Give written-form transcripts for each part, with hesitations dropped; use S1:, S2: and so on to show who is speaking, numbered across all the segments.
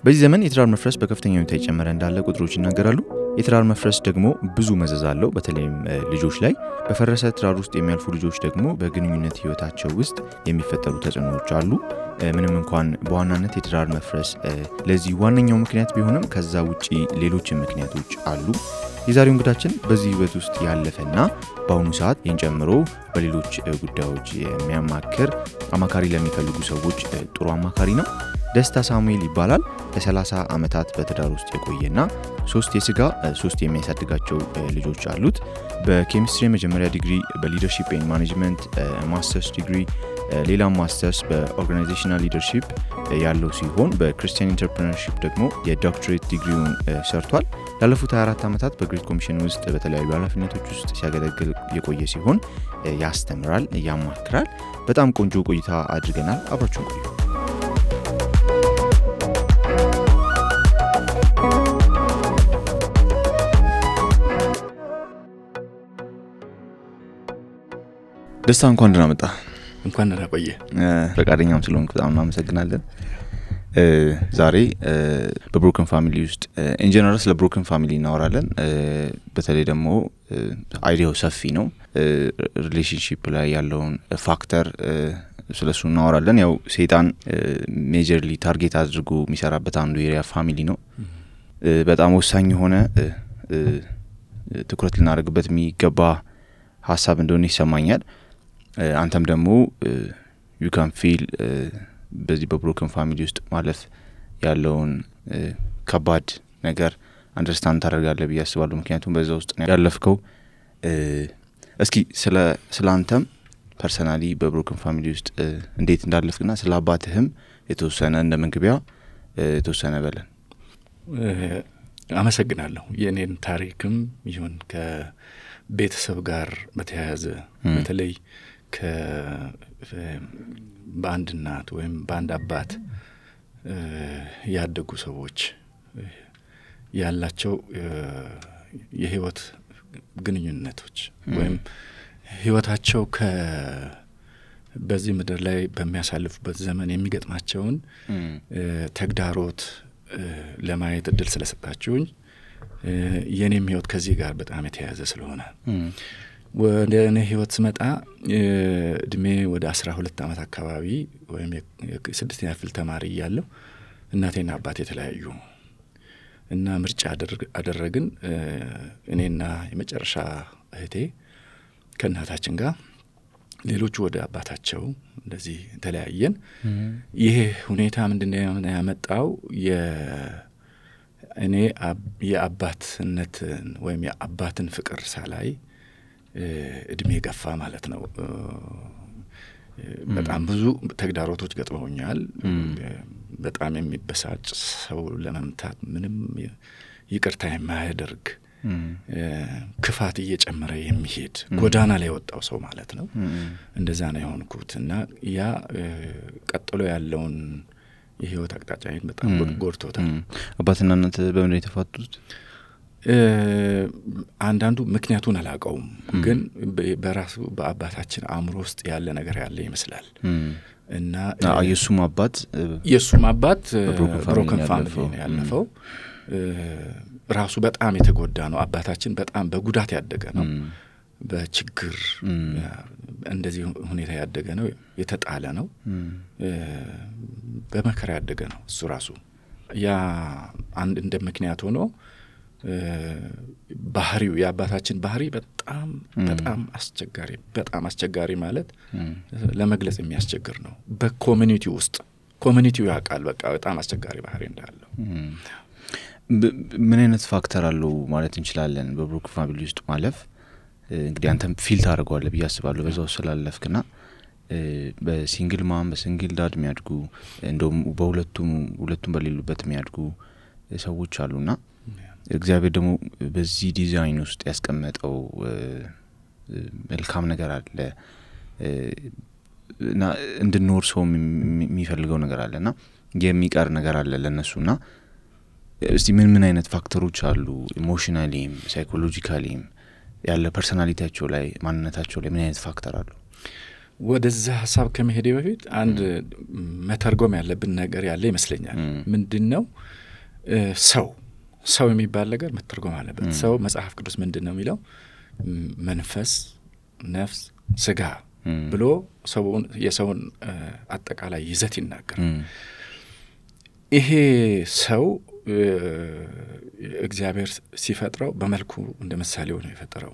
S1: በዚህ ዘመን የትዳር መፍረስ በከፍተኛ ሁኔታ እየጨመረ እንዳለ ቁጥሮች ይናገራሉ። የትዳር መፍረስ ደግሞ ብዙ መዘዝ አለው፣ በተለይም ልጆች ላይ። በፈረሰ ትዳር ውስጥ የሚያልፉ ልጆች ደግሞ በግንኙነት ህይወታቸው ውስጥ የሚፈጠሩ ተጽዕኖዎች አሉ። ምንም እንኳን በዋናነት የትዳር መፍረስ ለዚህ ዋነኛው ምክንያት ቢሆንም ከዛ ውጪ ሌሎች ምክንያቶች አሉ። የዛሬው እንግዳችን በዚህ ህይወት ውስጥ ያለፈና በአሁኑ ሰዓት ጨምሮ በሌሎች ጉዳዮች የሚያማክር አማካሪ ለሚፈልጉ ሰዎች ጥሩ አማካሪ ነው። ደስታ ሳሙኤል ይባላል። ለ30 ዓመታት በትዳር ውስጥ የቆየና 3 የስጋ 3 የሚያሳድጋቸው ልጆች አሉት። በኬሚስትሪ መጀመሪያ ዲግሪ፣ በሊደርሺፕ ኤንድ ማኔጅመንት ማስተርስ ዲግሪ፣ ሌላ ማስተርስ በኦርጋናይዜሽናል ሊደርሺፕ ያለው ሲሆን በክርስቲያን ኢንተርፕረነርሺፕ ደግሞ የዶክትሬት ዲግሪውን ሰርቷል። ላለፉት 24 ዓመታት በግሬት ኮሚሽን ውስጥ በተለያዩ ኃላፊነቶች ውስጥ ሲያገለግል የቆየ ሲሆን ያስተምራል፣ ያማክራል። በጣም ቆንጆ ቆይታ አድርገናል። አብራችሁን ቆዩ። ደስታ እንኳን ደህና መጣ።
S2: እንኳን ደህና ቆየ።
S1: ፈቃደኛም ስለሆንክ በጣም እናመሰግናለን። ዛሬ በብሮከን ፋሚሊ ውስጥ ኢን ጀነራል ስለ ብሮከን ፋሚሊ እናወራለን። በተለይ ደግሞ አይዲያው ሰፊ ነው። ሪሌሽንሺፕ ላይ ያለውን ፋክተር ስለሱ እናወራለን። ያው ሰይጣን ሜጀርሊ ታርጌት አድርጎ የሚሰራበት አንዱ ኤሪያ ፋሚሊ ነው። በጣም ወሳኝ የሆነ ትኩረት ልናደርግበት የሚገባ ሀሳብ እንደሆነ ይሰማኛል። አንተም ደግሞ you can feel በዚህ በብሮከን ፋሚሊ ውስጥ ማለፍ ያለውን ከባድ ነገር አንደርስታንድ ታደርጋለህ ብዬ አስባለሁ። ምክንያቱም በዛ ውስጥ ነው ያለፍከው። እስኪ ስለ አንተም ፐርሰናሊ በብሮከን ፋሚሊ ውስጥ እንዴት እንዳለፍክና ስለ አባትህም የተወሰነ እንደ መንግቢያ የተወሰነ በለን።
S2: አመሰግናለሁ። የኔን ታሪክም ይሁን ከቤተሰብ ጋር በተያያዘ በተለይ በአንድ እናት ወይም በአንድ አባት ያደጉ ሰዎች ያላቸው የህይወት ግንኙነቶች ወይም ህይወታቸው በዚህ ምድር ላይ በሚያሳልፉበት ዘመን የሚገጥማቸውን ተግዳሮት ለማየት እድል ስለሰጣችሁኝ የኔም ህይወት ከዚህ ጋር በጣም የተያያዘ ስለሆነ ወደ እኔ ህይወት ስመጣ እድሜ ወደ 12 ዓመት አካባቢ ወይም የ6ኛ ክፍል ተማሪ እያለሁ እናቴና አባቴ የተለያዩ እና ምርጫ አደረግን። እኔና የመጨረሻ እህቴ ከእናታችን ጋር፣ ሌሎቹ ወደ አባታቸው እንደዚህ ተለያየን። ይሄ ሁኔታ ምንድነው ያመጣው? እኔ የአባትነትን ወይም የአባትን ፍቅር ሳላይ እድሜ ገፋ ማለት ነው። በጣም ብዙ ተግዳሮቶች ገጥመውኛል። በጣም የሚበሳጭ ሰው ለመምታት ምንም ይቅርታ የማያደርግ ክፋት እየጨመረ የሚሄድ ጎዳና ላይ ወጣው ሰው ማለት ነው። እንደዛ ነው የሆንኩት እና ያ ቀጥሎ ያለውን የህይወት አቅጣጫዬን በጣም ጎድቶታል።
S1: አባትና እናት በምን የተፋቱት?
S2: አንዳንዱ ምክንያቱን አላውቀውም፣ ግን በራሱ በአባታችን አእምሮ ውስጥ ያለ ነገር ያለ ይመስላል እና የሱም አባት ብሮከን ፋሚሊ ነው ያለፈው። ራሱ በጣም የተጎዳ ነው። አባታችን በጣም በጉዳት ያደገ ነው። በችግር እንደዚህ ሁኔታ ያደገ ነው። የተጣለ ነው። በመከራ ያደገ ነው እሱ ራሱ። ያ አንድ እንደ ምክንያት ሆኖ ባህሪው የአባታችን ባህሪ በጣም አስቸጋሪ ማለት ለመግለጽ የሚያስቸግር ነው። ኮሚኒቲው ያውቃል በቃ በጣም አስቸጋሪ ባህሪ እንዳለው።
S1: ምን አይነት ፋክተር አለው ማለት እንችላለን በብሮከን ፋሚሊ ውስጥ ማለፍ? እንግዲህ አንተም ፊል ታደርገዋለህ ብዬ አስባለሁ በዛው ስላለፍክና በሲንግል ማም በሲንግል ዳድ የሚያድጉ እንደውም በሁለቱም በሌሉበት የሚያድጉ ሰዎች አሉና እግዚአብሔር ደግሞ በዚህ ዲዛይን ውስጥ ያስቀመጠው መልካም ነገር አለ እና እንድንኖር ሰው የሚፈልገው ነገር አለና የሚቀር ነገር አለ ለነሱና እስቲ ምን አይነት ፋክተሮች አሉ ኢሞሽናሊም ሳይኮሎጂካሊም ያለ ፐርሰናሊቲያቸው ላይ ማንነታቸው ላይ ምን አይነት ፋክተር አሉ?
S2: ወደዛ ሐሳብ ከመሄዴ በፊት አንድ መተርጎም ያለብን ነገር ያለ ይመስለኛል። ምንድነው ሰው የሚባል ነገር መተርጎም አለበት። ሰው መጽሐፍ ቅዱስ ምንድነው የሚለው? መንፈስ፣ ነፍስ፣ ስጋ ብሎ የሰውን አጠቃላይ ይዘት ይናገራል። ይሄ ሰው እግዚአብሔር ሲፈጥረው በመልኩ እንደ ምሳሌው ነው የፈጠረው።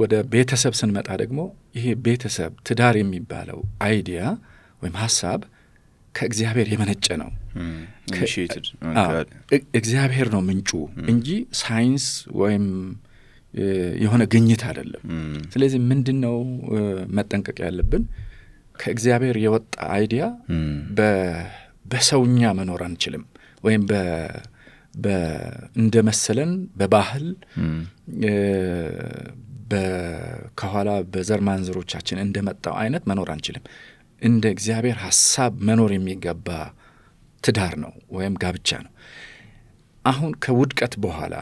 S2: ወደ ቤተሰብ ስንመጣ ደግሞ ይሄ ቤተሰብ ትዳር የሚባለው አይዲያ ወይም ሐሳብ ከእግዚአብሔር የመነጨ ነው። እግዚአብሔር ነው ምንጩ እንጂ ሳይንስ ወይም የሆነ ግኝት አይደለም። ስለዚህ ምንድነው መጠንቀቅ ያለብን? ከእግዚአብሔር የወጣ አይዲያ በሰውኛ መኖር አንችልም። ወይም እንደመሰለን በባህል ከኋላ በዘር ማንዘሮቻችን እንደመጣው አይነት መኖር አንችልም። እንደ እግዚአብሔር ሐሳብ መኖር የሚገባ ትዳር ነው ወይም ጋብቻ ነው። አሁን ከውድቀት በኋላ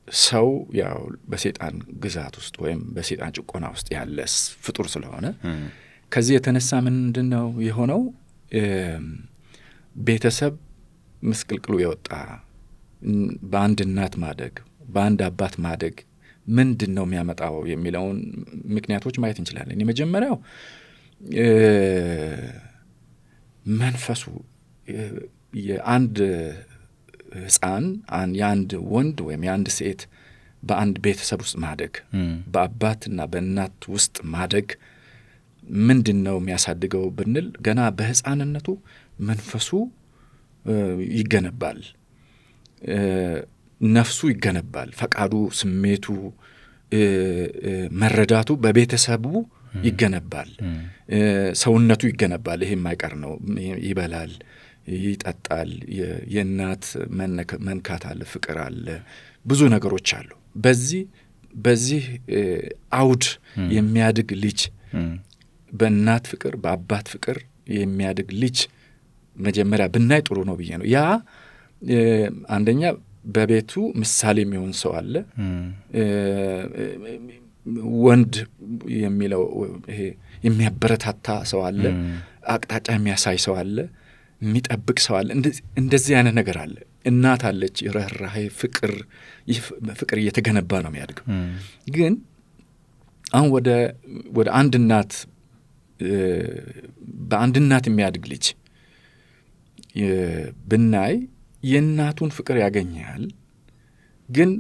S2: ሰው ያው በሰይጣን ግዛት ውስጥ ወይም በሰይጣን ጭቆና ውስጥ ያለ ፍጡር ስለሆነ ከዚህ የተነሳ ምንድነው የሆነው? ቤተሰብ ምስቅልቅሉ የወጣ በአንድ እናት ማደግ በአንድ አባት ማደግ ምንድነው የሚያመጣው የሚለውን ምክንያቶች ማየት እንችላለን። የመጀመሪያው መንፈሱ የአንድ ሕፃን የአንድ ወንድ ወይም የአንድ ሴት በአንድ ቤተሰብ ውስጥ ማደግ በአባትና በእናት ውስጥ ማደግ ምንድነው የሚያሳድገው ብንል ገና በሕፃንነቱ መንፈሱ ይገነባል፣ ነፍሱ ይገነባል፣ ፈቃዱ፣ ስሜቱ፣ መረዳቱ በቤተሰቡ ይገነባል፣ ሰውነቱ ይገነባል። ይሄ የማይቀር ነው። ይበላል፣ ይጠጣል፣ የእናት መንካት አለ፣ ፍቅር አለ፣ ብዙ ነገሮች አሉ። በዚህ አውድ የሚያድግ ልጅ በእናት ፍቅር በአባት ፍቅር የሚያድግ ልጅ መጀመሪያ ብናይ ጥሩ ነው ብዬ ነው። ያ አንደኛ በቤቱ ምሳሌ የሚሆን ሰው አለ። ወንድ የሚለው ይሄ የሚያበረታታ ሰው አለ፣ አቅጣጫ የሚያሳይ ሰው አለ፣ የሚጠብቅ ሰው አለ። እንደዚህ አይነት ነገር አለ። እናት አለች፣ ርህራሄ፣ ፍቅር እየተገነባ ነው የሚያድገው። ግን አሁን ወደ አንድ እናት በአንድ እናት የሚያድግ ልጅ ብናይ የእናቱን ፍቅር ያገኛል። ግን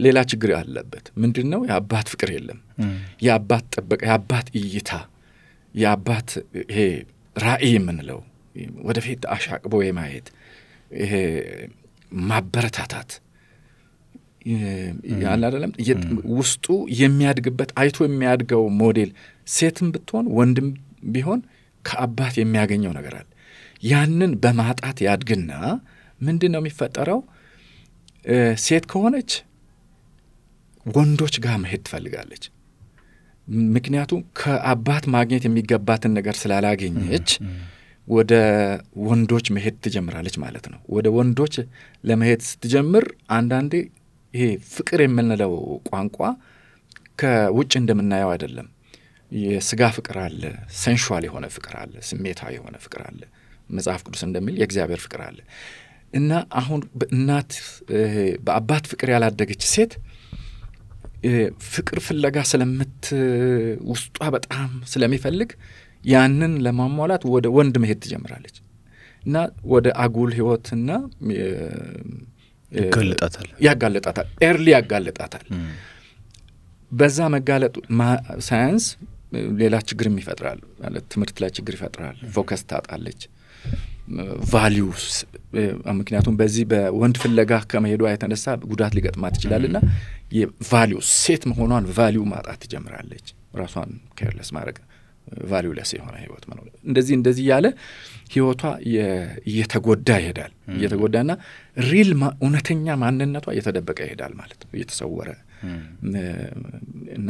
S2: ሌላ ችግር አለበት። ምንድነው? የአባት ፍቅር የለም። የአባት ጥበቃ፣ የአባት እይታ፣ የአባት ይሄ ራእይ የምንለው ወደፊት አሻቅቦ የማየት ይሄ ማበረታታት ያለ አይደለም። ውስጡ የሚያድግበት አይቶ የሚያድገው ሞዴል ሴትም ብትሆን ወንድም ቢሆን ከአባት የሚያገኘው ነገር አለ። ያንን በማጣት ያድግና ምንድነው የሚፈጠረው? ሴት ከሆነች ወንዶች ጋር መሄድ ትፈልጋለች። ምክንያቱም ከአባት ማግኘት የሚገባትን ነገር ስላላገኘች ወደ ወንዶች መሄድ ትጀምራለች ማለት ነው። ወደ ወንዶች ለመሄድ ስትጀምር አንዳንዴ ይሄ ፍቅር የምንለው ቋንቋ ከውጭ እንደምናየው አይደለም። የስጋ ፍቅር አለ፣ ሴንሹዋል የሆነ ፍቅር አለ፣ ስሜታዊ የሆነ ፍቅር አለ። መጽሐፍ ቅዱስ እንደሚል የእግዚአብሔር ፍቅር አለ። እና አሁን በአባት ፍቅር ያላደገች ሴት ፍቅር ፍለጋ ውስጧ በጣም ስለሚፈልግ ያንን ለማሟላት ወደ ወንድ መሄድ ትጀምራለች እና ወደ አጉል ህይወትና ያጋለጣታል፣ ኤርሊ ያጋለጣታል። በዛ መጋለጡ ሳይንስ ሌላ ችግር ይፈጥራል ማለት ትምህርት ላይ ችግር ይፈጥራል። ፎከስ ታጣለች፣ ቫልዩስ ምክንያቱም በዚህ በወንድ ፍለጋ ከመሄዷ የተነሳ ጉዳት ሊገጥማት ይችላልና የቫልዩስ ሴት መሆኗን ቫልዩ ማጣት ትጀምራለች። ራሷን ኬርለስ ማድረግ፣ ቫልዩለስ የሆነ ህይወት መኖር፣ እንደዚህ ያለ ህይወቷ እየተጎዳ ይሄዳል። እየተጎዳና ሪል እውነተኛ ማንነቷ እየተደበቀ ይሄዳል ማለት ነው፣ እየተሰወረ እና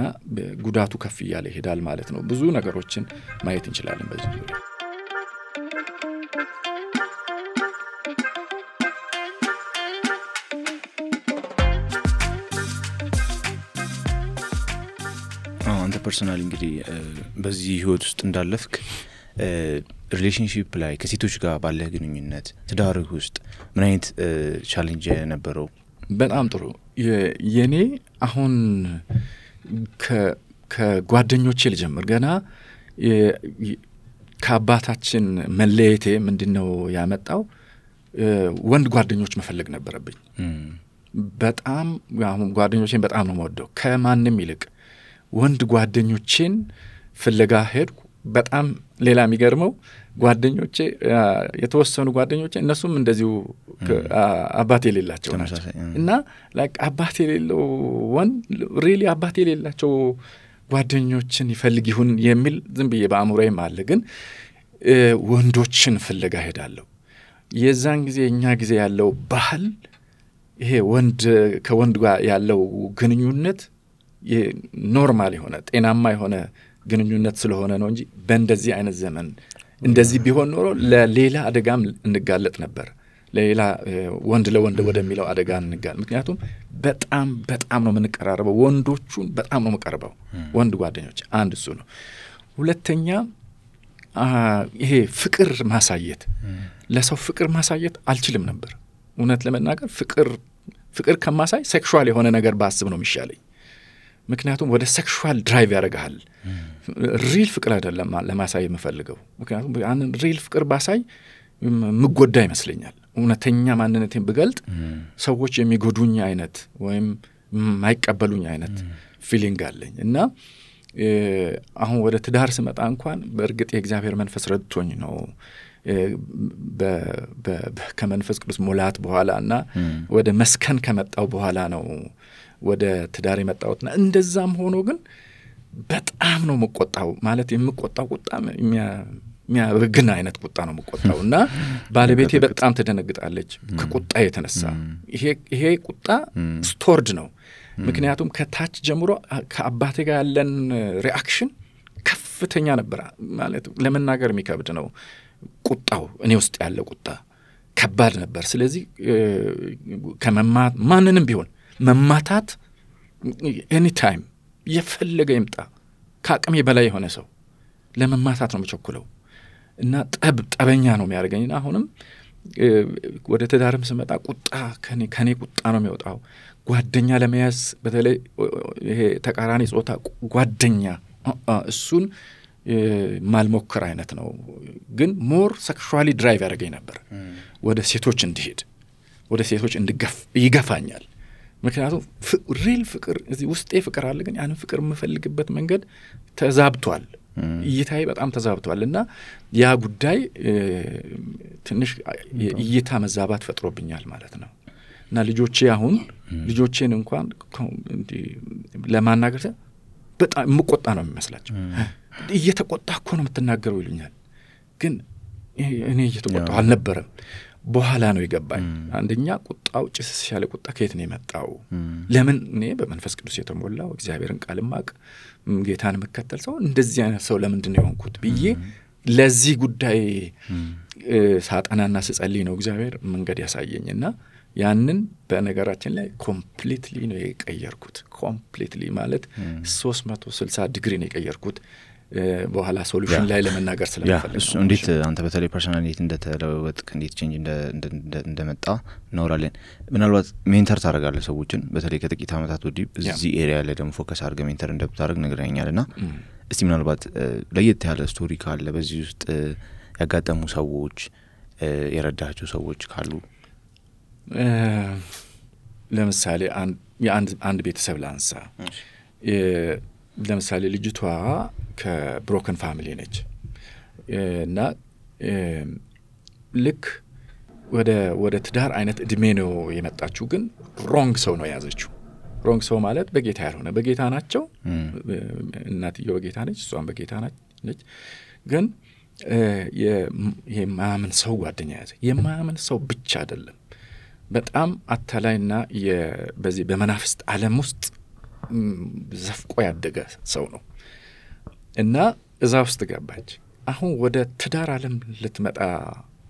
S2: ጉዳቱ ከፍ እያለ ይሄዳል ማለት ነው። ብዙ ነገሮችን ማየት እንችላለን በዚህ ዙሪያ።
S1: አንተ ፐርሰናሊ እንግዲህ በዚህ ህይወት ውስጥ እንዳለፍክ ሪሌሽንሺፕ ላይ ከሴቶች ጋር ባለ ግንኙነት ትዳርህ ውስጥ ምን አይነት ቻሌንጅ ነበረው?
S2: በጣም ጥሩ። የኔ አሁን ከጓደኞቼ ልጀምር። ገና ከአባታችን መለየቴ ምንድነው ያመጣው? ወንድ ጓደኞች መፈለግ ነበረብኝ። በጣም አሁን ጓደኞቼን በጣም ነው የምወደው ከማንም ይልቅ ወንድ ጓደኞቼን ፍለጋ ሄድኩ። በጣም ሌላ የሚገርመው ጓደኞቼ የተወሰኑ ጓደኞቼ እነሱም እንደዚሁ አባት የሌላቸው ናቸው እና ላይክ አባት የሌለው ወንድ ሪሊ አባት የሌላቸው ጓደኞችን ይፈልግ ይሁን የሚል ዝም ብዬ በአእምሮዬም አለ። ግን ወንዶችን ፍለጋ ሄዳለሁ። የዛን ጊዜ እኛ ጊዜ ያለው ባህል ይሄ ወንድ ከወንድ ጋር ያለው ግንኙነት ኖርማል የሆነ ጤናማ የሆነ ግንኙነት ስለሆነ ነው እንጂ በእንደዚህ አይነት ዘመን እንደዚህ ቢሆን ኖሮ ለሌላ አደጋም እንጋለጥ ነበር። ለሌላ ወንድ ለወንድ ወደሚለው አደጋ እንጋለጥ። ምክንያቱም በጣም ነው የምንቀራረበው። ወንዶቹን በጣም ነው የምቀርበው ወንድ ጓደኞች። አንድ እሱ ነው። ሁለተኛ ይሄ ፍቅር ማሳየት፣ ለሰው ፍቅር ማሳየት አልችልም ነበር እውነት ለመናገር። ፍቅር ከማሳይ ሴክሹዋል የሆነ ነገር ባስብ ነው የሚሻለኝ። ምክንያቱም ወደ ሴክሹዋል ድራይቭ ያደርጋል። ሪል ፍቅር አይደለም ለማሳይ የምፈልገው። ምክንያቱም ያንን ሪል ፍቅር ባሳይ ምጎዳ ይመስለኛል። እውነተኛ ማንነቴን ብገልጥ ሰዎች የሚጎዱኝ አይነት ወይም ማይቀበሉኝ አይነት ፊሊንግ አለኝ እና አሁን ወደ ትዳር ስመጣ እንኳን በእርግጥ የእግዚአብሔር መንፈስ ረድቶኝ ነው ከመንፈስ ቅዱስ ሙላት በኋላ እና ወደ መስከን ከመጣው በኋላ ነው ወደ ትዳር የመጣሁትና እንደዛም ሆኖ ግን በጣም ነው መቆጣው። ማለት የምቆጣው ቁጣ የሚያበግን አይነት ቁጣ ነው መቆጣው እና ባለቤቴ በጣም ትደነግጣለች ከቁጣ የተነሳ። ይሄ ቁጣ ስቶርድ ነው። ምክንያቱም ከታች ጀምሮ ከአባቴ ጋር ያለን ሪአክሽን ከፍተኛ ነበር። ማለት ለመናገር የሚከብድ ነው። ቁጣው እኔ ውስጥ ያለ ቁጣ ከባድ ነበር። ስለዚህ ማንንም ቢሆን መማታት ኤኒ ታይም የፈለገ ይምጣ ከአቅሜ በላይ የሆነ ሰው ለመማታት ነው የምቸኩለው እና ጠበኛ ነው የሚያደርገኝና አሁንም ወደ ትዳርም ስመጣ ቁጣ ከኔ ቁጣ ነው የሚወጣው። ጓደኛ ለመያዝ በተለይ ይሄ ተቃራኒ ጾታ ጓደኛ እሱን ማልሞከር አይነት ነው። ግን ሞር ሴክሹዋሊ ድራይቭ ያደርገኝ ነበር ወደ ሴቶች እንዲሄድ፣ ወደ ሴቶች ይገፋኛል። ምክንያቱም ሪል ፍቅር እዚህ ውስጤ ፍቅር አለ። ግን ያንን ፍቅር የምፈልግበት መንገድ ተዛብቷል። እይታዬ በጣም ተዛብቷል እና ያ ጉዳይ ትንሽ እይታ መዛባት ፈጥሮብኛል ማለት ነው። እና ልጆቼን እንኳን ለማናገር በጣም የምቆጣ ነው የሚመስላቸው። እየተቆጣ እኮ ነው የምትናገረው ይሉኛል። ግን እኔ እየተቆጣሁ አልነበረም። በኋላ ነው የገባኝ። አንደኛ ቁጣው ጭስ ያለ ቁጣ ከየት ነው የመጣው? ለምን እኔ በመንፈስ ቅዱስ የተሞላው እግዚአብሔርን ቃል ማቅ ጌታን መከተል ሰው እንደዚህ አይነት ሰው ለምንድን ነው የሆንኩት ብዬ ለዚህ ጉዳይ ሳጠናና ስጸልይ ነው እግዚአብሔር መንገድ ያሳየኝና ያንን በነገራችን ላይ ኮምፕሊትሊ ነው የቀየርኩት። ኮምፕሊትሊ ማለት 360 ዲግሪ ነው የቀየርኩት። በኋላ ሶሉሽን ላይ ለመናገር ስለምፈልግ ነው።
S1: እንዴት አንተ በተለይ ፐርሰናሊቲ እንደተለወጥክ እንዴት ቼንጅ እንደመጣ እናወራለን። ምናልባት ሜንተር ታደርጋለህ ሰዎችን በተለይ ከጥቂት ዓመታት ወዲህ እዚህ ኤሪያ ላይ ደግሞ ፎከስ አድርገህ ሜንተር እንደምታደርግ ነግረኸኛልና እስቲ ምናልባት ለየት ያለ ስቶሪ ካለ በዚህ ውስጥ ያጋጠሙ ሰዎች የረዳቸው ሰዎች ካሉ
S2: ለምሳሌ አንድ ቤተሰብ ላንሳ። ለምሳሌ ልጅቷ ከብሮከን ፋሚሊ ነች እና ልክ ወደ ትዳር አይነት እድሜ ነው የመጣችው። ግን ሮንግ ሰው ነው የያዘችው። ሮንግ ሰው ማለት በጌታ ያልሆነ። በጌታ ናቸው፣ እናትየው በጌታ ነች፣ እሷም በጌታ ነች። ግን የማያምን ሰው ጓደኛ ያዘ። የማያምን ሰው ብቻ አይደለም፣ በጣም አታላይና በዚህ በመናፍስት ዓለም ውስጥ ዘፍቆ ያደገ ሰው ነው እና እዛ ውስጥ ገባች። አሁን ወደ ትዳር ዓለም ልትመጣ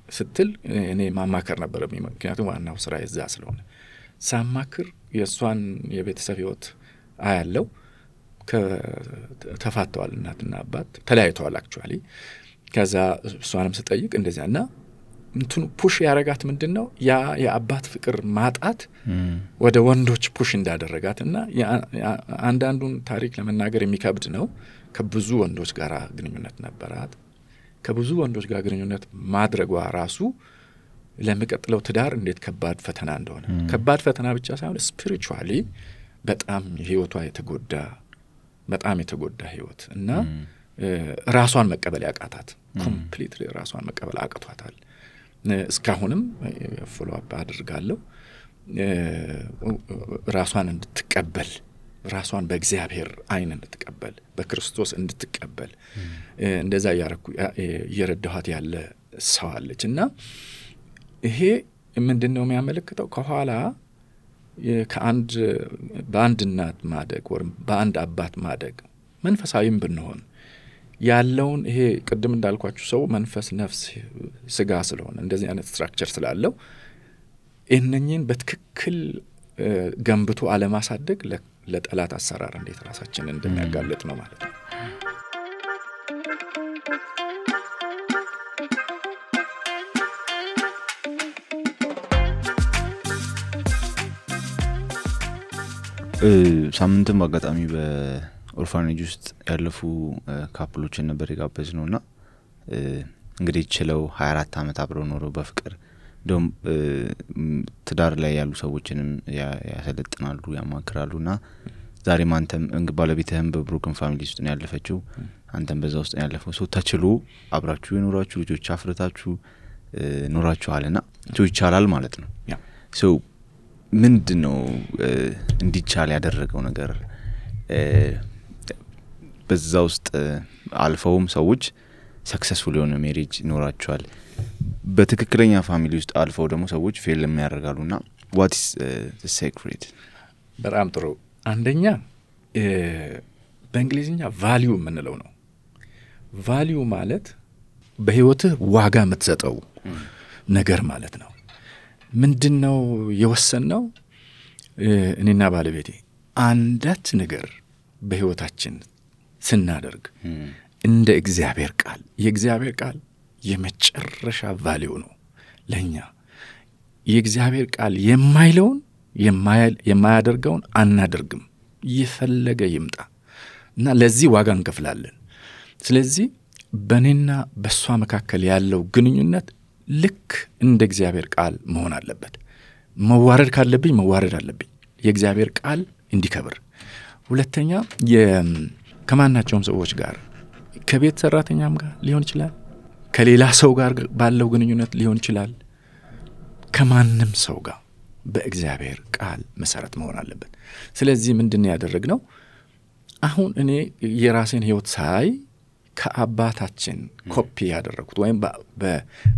S2: ስትል እኔ ማማከር ነበረብኝ። ምክንያቱም ዋናው ስራ የዛ ስለሆነ ሳማክር የእሷን የቤተሰብ ህይወት አያለው። ተፋተዋል፣ እናትና አባት ተለያይተዋል አክቹአሊ። ከዛ እሷንም ስጠይቅ እንደዚያና እንትኑ ፑሽ ያረጋት ምንድነው ያ የአባት ፍቅር ማጣት ወደ ወንዶች ፑሽ እንዳደረጋትና አንዳንዱን ታሪክ ለመናገር የሚከብድ ነው። ከብዙ ወንዶች ጋር ግንኙነት ነበራት። ከብዙ ወንዶች ጋር ግንኙነት ማድረጓ ራሱ ለሚቀጥለው ትዳር እንዴት ከባድ ፈተና እንደሆነ ከባድ ፈተና ብቻ ሳይሆን ስፒሪቹዋሊ በጣም ህይወቷ በጣም የተጎዳ ህይወት እና ራሷን መቀበል ያቃታት ኮምፕሊትሊ ራሷን መቀበል አቅቷታል። እስካሁንም ፎሎ አፕ አድርጋለሁ ራሷን እንድትቀበል ራሷን በእግዚአብሔር አይን እንድትቀበል በክርስቶስ እንድትቀበል እንደዛ እየረዳኋት ያለ ሰው አለች። እና ይሄ ምንድነው የሚያመለክተው ከኋላ በአንድ እናት ማደግ ወይም በአንድ አባት ማደግ መንፈሳዊም ብንሆን ያለውን ይሄ ቅድም እንዳልኳችሁ ሰው መንፈስ፣ ነፍስ፣ ስጋ ስለሆነ እንደዚህ አይነት ስትራክቸር ስላለው እነኚህን በትክክል ገንብቶ አለማሳደግ ለጠላት አሰራር እንዴት ራሳችንን እንደሚያጋልጥ ነው ማለት ነው።
S1: ሳምንትም አጋጣሚ በኦርፋኔጅ ውስጥ ያለፉ ካፕሎችን ነበር የጋበዝነውና እንግዲህ ችለው 24 ዓመት አብረው ኖረው በፍቅር ደም ትዳር ላይ ያሉ ሰዎችንም ያሰለጥናሉ ያማክራሉና ዛሬም አንተም ባለቤትህም በብሮክን ፋሚሊ ውስጥ ነው ያለፈችው፣ አንተም በዛ ውስጥ ነው ያለፈው። ሰው ተችሎ አብራችሁ የኖራችሁ ልጆች አፍርታችሁ ኖራችኋልና ይቻላል ማለት ነው። ሰው ምንድነው እንዲቻል ያደረገው ነገር? በዛ ውስጥ አልፈውም ሰዎች ሰክሰስፉል የሆነ ሜሪጅ ኖራቸዋል። በትክክለኛ ፋሚሊ ውስጥ አልፈው ደግሞ ሰዎች ፌል የሚያደርጋሉና what is the secret?
S2: በጣም ጥሩ። አንደኛ በእንግሊዝኛ ቫልዩ የምንለው ነው። ቫልዩ ማለት በህይወትህ ዋጋ የምትሰጠው ነገር ማለት ነው። ምንድነው የወሰነው? እኔና ባለቤቴ አንዳች ነገር በህይወታችን ስናደርግ እንደ እግዚአብሔር ቃል የእግዚአብሔር ቃል የመጨረሻ ቫልዩ ነው ለኛ። የእግዚአብሔር ቃል የማይለውን የማያደርገውን አናደርግም፣ ይፈለገ ይምጣ እና ለዚህ ዋጋ እንከፍላለን። ስለዚህ በእኔና በሷ መካከል ያለው ግንኙነት ልክ እንደ እግዚአብሔር ቃል መሆን አለበት። መዋረድ ካለብኝ መዋረድ አለብኝ የእግዚአብሔር ቃል እንዲከብር። ሁለተኛ ከማናቸውም ሰዎች ጋር ከቤት ሰራተኛም ጋር ሊሆን ይችላል፣ ከሌላ ሰው ጋር ባለው ግንኙነት ሊሆን ይችላል፣ ከማንም ሰው ጋር በእግዚአብሔር ቃል መሰረት መሆን አለበት። ስለዚህ ምንድነው ያደረግነው? አሁን እኔ የራሴን ህይወት ሳይ ከአባታችን ኮፒ ያደረኩት ወይም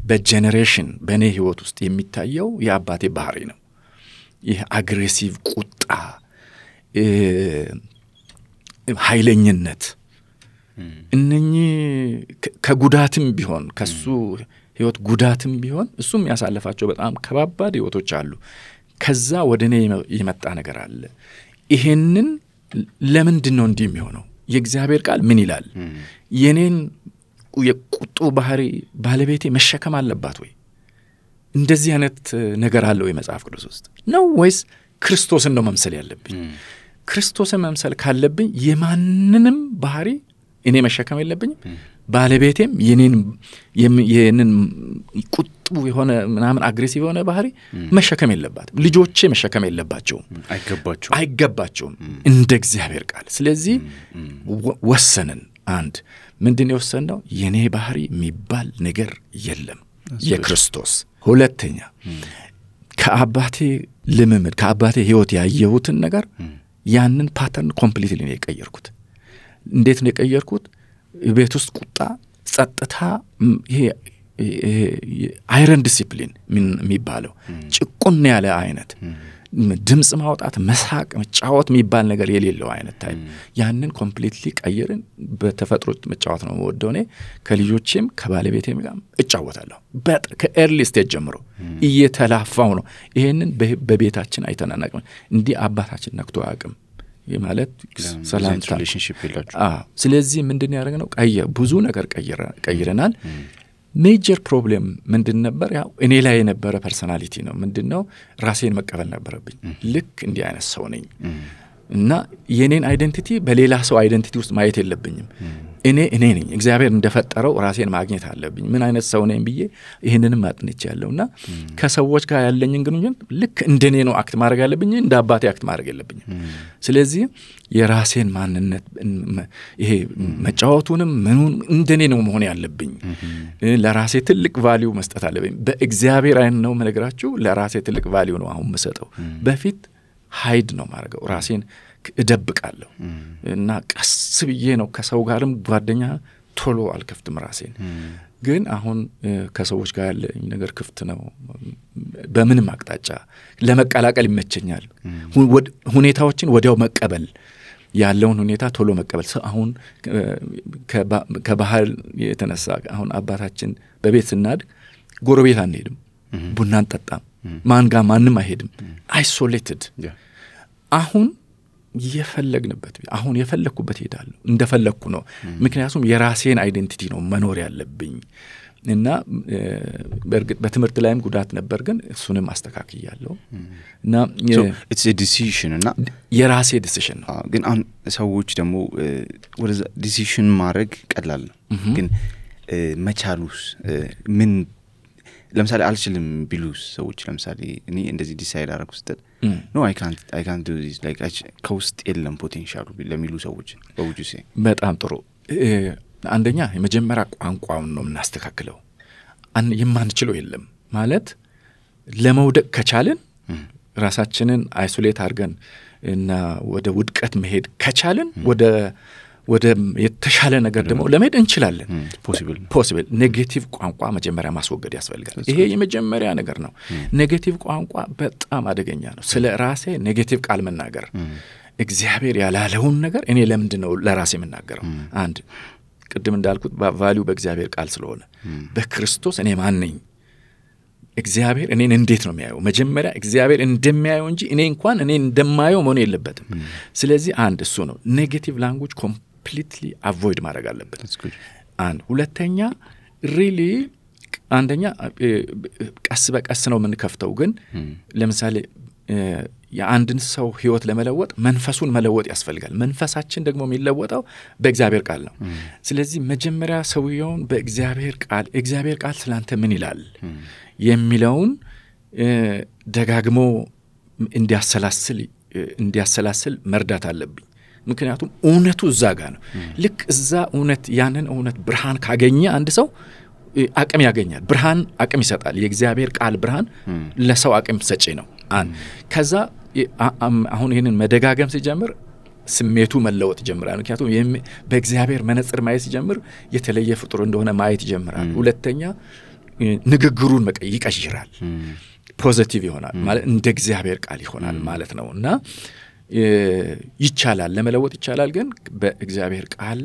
S2: በጄኔሬሽን በእኔ ህይወት ውስጥ የሚታየው የአባቴ ባህሪ ነው። ይህ አግሬሲቭ ቁጣ፣ ኃይለኝነት፣ እነኚህ ከጉዳትም ቢሆን ከሱ ህይወት ጉዳትም ቢሆን እሱም ያሳለፋቸው በጣም ከባባድ ህይወቶች አሉ። ከዛ ወደ እኔ የመጣ ነገር አለ። ይሄንን ለምንድን ነው እንዲህ የሚሆነው? የእግዚአብሔር ቃል ምን ይላል? የኔን የቁጡ ባህሪ ባለቤቴ መሸከም አለባት ወይ? እንደዚህ አይነት ነገር አለው የመጽሐፍ ቅዱስ ውስጥ ነው ወይስ ክርስቶስን ነው መምሰል ያለብኝ? ክርስቶስን መምሰል ካለብኝ የማንንም ባህሪ እኔ መሸከም የለብኝም። ባለቤቴም የኔን ቁጡ የሆነ ምናምን አግሬሲቭ የሆነ ባህሪ መሸከም የለባትም። ልጆቼ መሸከም የለባቸውም፣ አይገባቸውም እንደ እግዚአብሔር ቃል። ስለዚህ ወሰንን። አንድ ምንድነው የወሰንነው? የኔ ባህሪ የሚባል ነገር የለም፣ የክርስቶስ። ሁለተኛ ከአባቴ ልምምድ ከአባቴ ህይወት ያየሁትን ነገር ያንን ፓተርን ኮምፕሊትሊ ነው የቀየርኩት። እንዴት ነው የቀየርኩት? ቤት ውስጥ ቁጣ፣ ጸጥታ፣ ይሄ አይረን ዲሲፕሊን የሚባለው ጭቁን ያለ አይነት ድምጽ ማውጣት፣ መሳቅ፣ መጫወት የሚባል ነገር የሌለው አይነት ታይፕ ያንን ኮምፕሊትሊ ቀየርን። በተፈጥሮ መጫወት ነው የምወደው እኔ። ከልጆቼም ከባለቤቴም ጋር እጫወታለሁ። ከኤርሊ ስቴጅ ጀምሮ እየተላፋው ነው። ይሄንን በቤታችን አይተናናቅም። እንዲህ አባታችን ነክቶ አያውቅም። ማለት ሰላምታ
S1: ሪሌሽንሺፕ ይላችሁ
S2: ስለዚህ ምንድነው ያደረግነው ብዙ ነገር ቀይረናል ሜጀር ፕሮብሌም ምንድን ነበር ያው እኔ ላይ የነበረ ፐርሰናሊቲ ነው ምንድነው ራሴን መቀበል ነበረብኝ ልክ እንዲህ አይነት ሰው ነኝ እና የኔን አይደንቲቲ በሌላ ሰው አይደንቲቲ ውስጥ ማየት የለብኝም እኔ ነኝ እግዚአብሔር እንደፈጠረው ራሴን ማግኘት አለብኝ ምን አይነት ሰው ነኝ ብዬ ይሄንንም አጥንቻለሁና ከሰዎች ጋር ያለኝን ግንኙነት ልክ እንደኔ ነው አክት ማድረግ ያለብኝ እንደ አባቴ አክት ማድረግ የለብኝም ስለዚህ የራሴን ማንነት ይሄ መጫወቱንም ምኑን እንደኔ ነው መሆን ያለብኝ ለራሴ ትልቅ ቫልዩ መስጠት አለብኝ በእግዚአብሔር አይን ነው መነግራችሁ ለራሴ ትልቅ ቫልዩ ነው አሁን መስጠው በፊት ሃይድ ነው ማድረገው ራሴን እደብቃለሁ እና ቀስ ብዬ ነው ከሰው ጋርም ጓደኛ ቶሎ አልከፍትም ራሴን ግን አሁን ከሰዎች ጋር ያለኝ ነገር ክፍት ነው በምንም አቅጣጫ ለመቀላቀል ይመቸኛል ሁኔታዎችን ወዲያው መቀበል ያለውን ሁኔታ ቶሎ መቀበል አሁን ከባህል የተነሳ አሁን አባታችን በቤት ስናድግ ጎረቤት አንሄድም ቡና አንጠጣም ማን ጋር ማንም አይሄድም አይሶሌትድ አሁን የፈለግንበት አሁን የፈለኩበት ሄዳለሁ እንደፈለኩ ነው ምክንያቱም የራሴን አይደንቲቲ ነው መኖር ያለብኝ እና በርግጥ በትምህርት ላይም ጉዳት ነበር ግን እሱንም አስተካክያለሁ እና
S1: it's a decision እና
S2: የራሴ ዲሲሽን ነው
S1: ግን አሁን ሰዎች ደግሞ ወደ ዲሲሽን ማድረግ ቀላል ነው ግን መቻሉስ ምን ለምሳሌ አልችልም ቢሉስ ሰዎች ለምሳሌ እኔ እንደዚህ ዲሳይድ አደረኩ ስትል no I can't do this like ከውስጥ የለም ፖቴንሻሉ ለሚሉ ሰዎች በውጁ ሲይ
S2: በጣም ጥሩ አንደኛ የመጀመሪያ ቋንቋውን ነው እናስተካክለው የማንችለው የለም ማለት ለመውደቅ ከቻልን ራሳችንን አይሶሌት አድርገን እና ወደ ውድቀት መሄድ ከቻልን ወደ የተሻለ ነገር ደግሞ ለመሄድ እንችላለን ፖሲብል ኔጌቲቭ ቋንቋ መጀመሪያ ማስወገድ ያስፈልጋል ይሄ የመጀመሪያ ነገር ነው ኔጌቲቭ ቋንቋ በጣም አደገኛ ነው ስለ ራሴ ኔጌቲቭ ቃል መናገር እግዚአብሔር ያላለውን ነገር እኔ ለምንድነው ለራሴ መናገረው አንድ ቅድም እንዳልኩት ቫልዩ በእግዚአብሔር ቃል ስለሆነ በክርስቶስ እኔ ማን ነኝ እግዚአብሔር እኔን እንዴት ነው የሚያየው መጀመሪያ እግዚአብሔር እንደሚያየው እንጂ እኔ እንኳን እኔን እንደማየው መሆን የለበትም ስለዚህ አንድ እሱ ነው ኔጌቲቭ ላንጉዌጅ completely avoid ማድረግ አለበት አንድ ሁለተኛ really አንደኛ ቀስ በቀስ ነው የምንከፍተው ግን ለምሳሌ የአንድን ሰው ህይወት ለመለወጥ መንፈሱን መለወጥ ያስፈልጋል መንፈሳችን ደግሞ የሚለወጠው በእግዚአብሔር ቃል ነው ስለዚህ መጀመሪያ ሰውየውን እግዚአብሔር ቃል ስላንተ ምን ይላል የሚለውን ደጋግሞ እንዲያሰላስል መርዳት አለብኝ ምክንያቱም እውነቱ እዛ ጋር ነው ልክ እዛ እውነት ያንን እውነት ብርሃን ካገኘ አንድ ሰው አቅም ያገኛል ብርሃን አቅም ይሰጣል የእግዚአብሔር ቃል ብርሃን ለሰው አቅም ሰጪ ነው ከዛ አሁን ይሄንን መደጋገም ሲጀምር ስሜቱ መለወጥ ይጀምራል ምክንያቱም በእግዚአብሔር መነጽር ማየት ሲጀምር የተለየ ፍጡር እንደሆነ ማየት ይጀምራል ሁለተኛ ንግግሩን ይቀይራል ፖዚቲቭ ይሆናል ማለት እንደ እግዚአብሔር ቃል ይሆናል ማለት ነውና ይቻላል ለመለወጥ ይቻላል ግን በእግዚአብሔር ቃል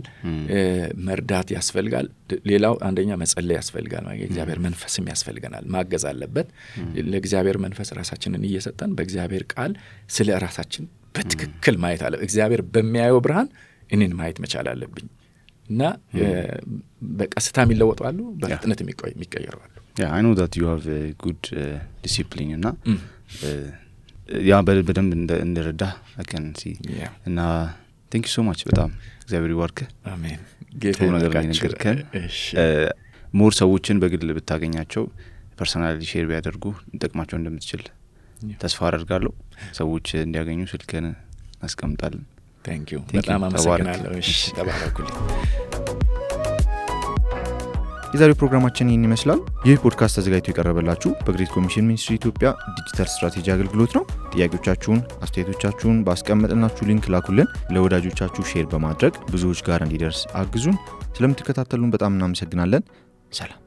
S2: መርዳት ያስፈልጋል ሌላው አንደኛ መጸለይ ያስፈልጋል ማለት የእግዚአብሔር መንፈስም ያስፈልገናል ማገዝ አለበት ለእግዚአብሔር መንፈስ ራሳችንን እየሰጠን በእግዚአብሔር ቃል ስለ ራሳችን በትክክል ማየት አለ እግዚአብሔር በሚያየው ብርሃን እኔን ማየት መቻል አለብኝ እና በቀስታ የሚለወጣሉ በፍጥነት የሚቀየራሉ
S1: I know that you have a good discipline እና ያ በደንብ እንደረዳ I can see እና thank you so much በጣም እግዚአብሔር ይባርክ
S2: አሜን
S1: ጌታ ይነገርከን ሞር ሰዎችን በግል ብታገኛቸው ፐርሰናሊ ሼር ቢያደርጉ እንጠቅማቸው እንደምትችል ተስፋ አደርጋለሁ ሰዎች እንዲያገኙ ስልክህን አስቀምጣለን
S2: thank you በጣም አመሰግናለሁ እሺ ተባረኩልኝ
S1: የዛሬው ፕሮግራማችን ይህን ይመስላል ይህ ፖድካስት ተዘጋጅቶ የቀረበላችሁ በግሬት ኮሚሽን ሚኒስትሪ ኢትዮጵያ ዲጂታል ስትራቴጂ አገልግሎት ነው ጥያቄዎቻችሁን አስተያየቶቻችሁን ባስቀመጥናችሁ ሊንክ ላኩልን ለወዳጆቻችሁ ሼር በማድረግ ብዙዎች ጋር እንዲደርስ አግዙን ስለምትከታተሉን በጣም እናመሰግናለን ሰላም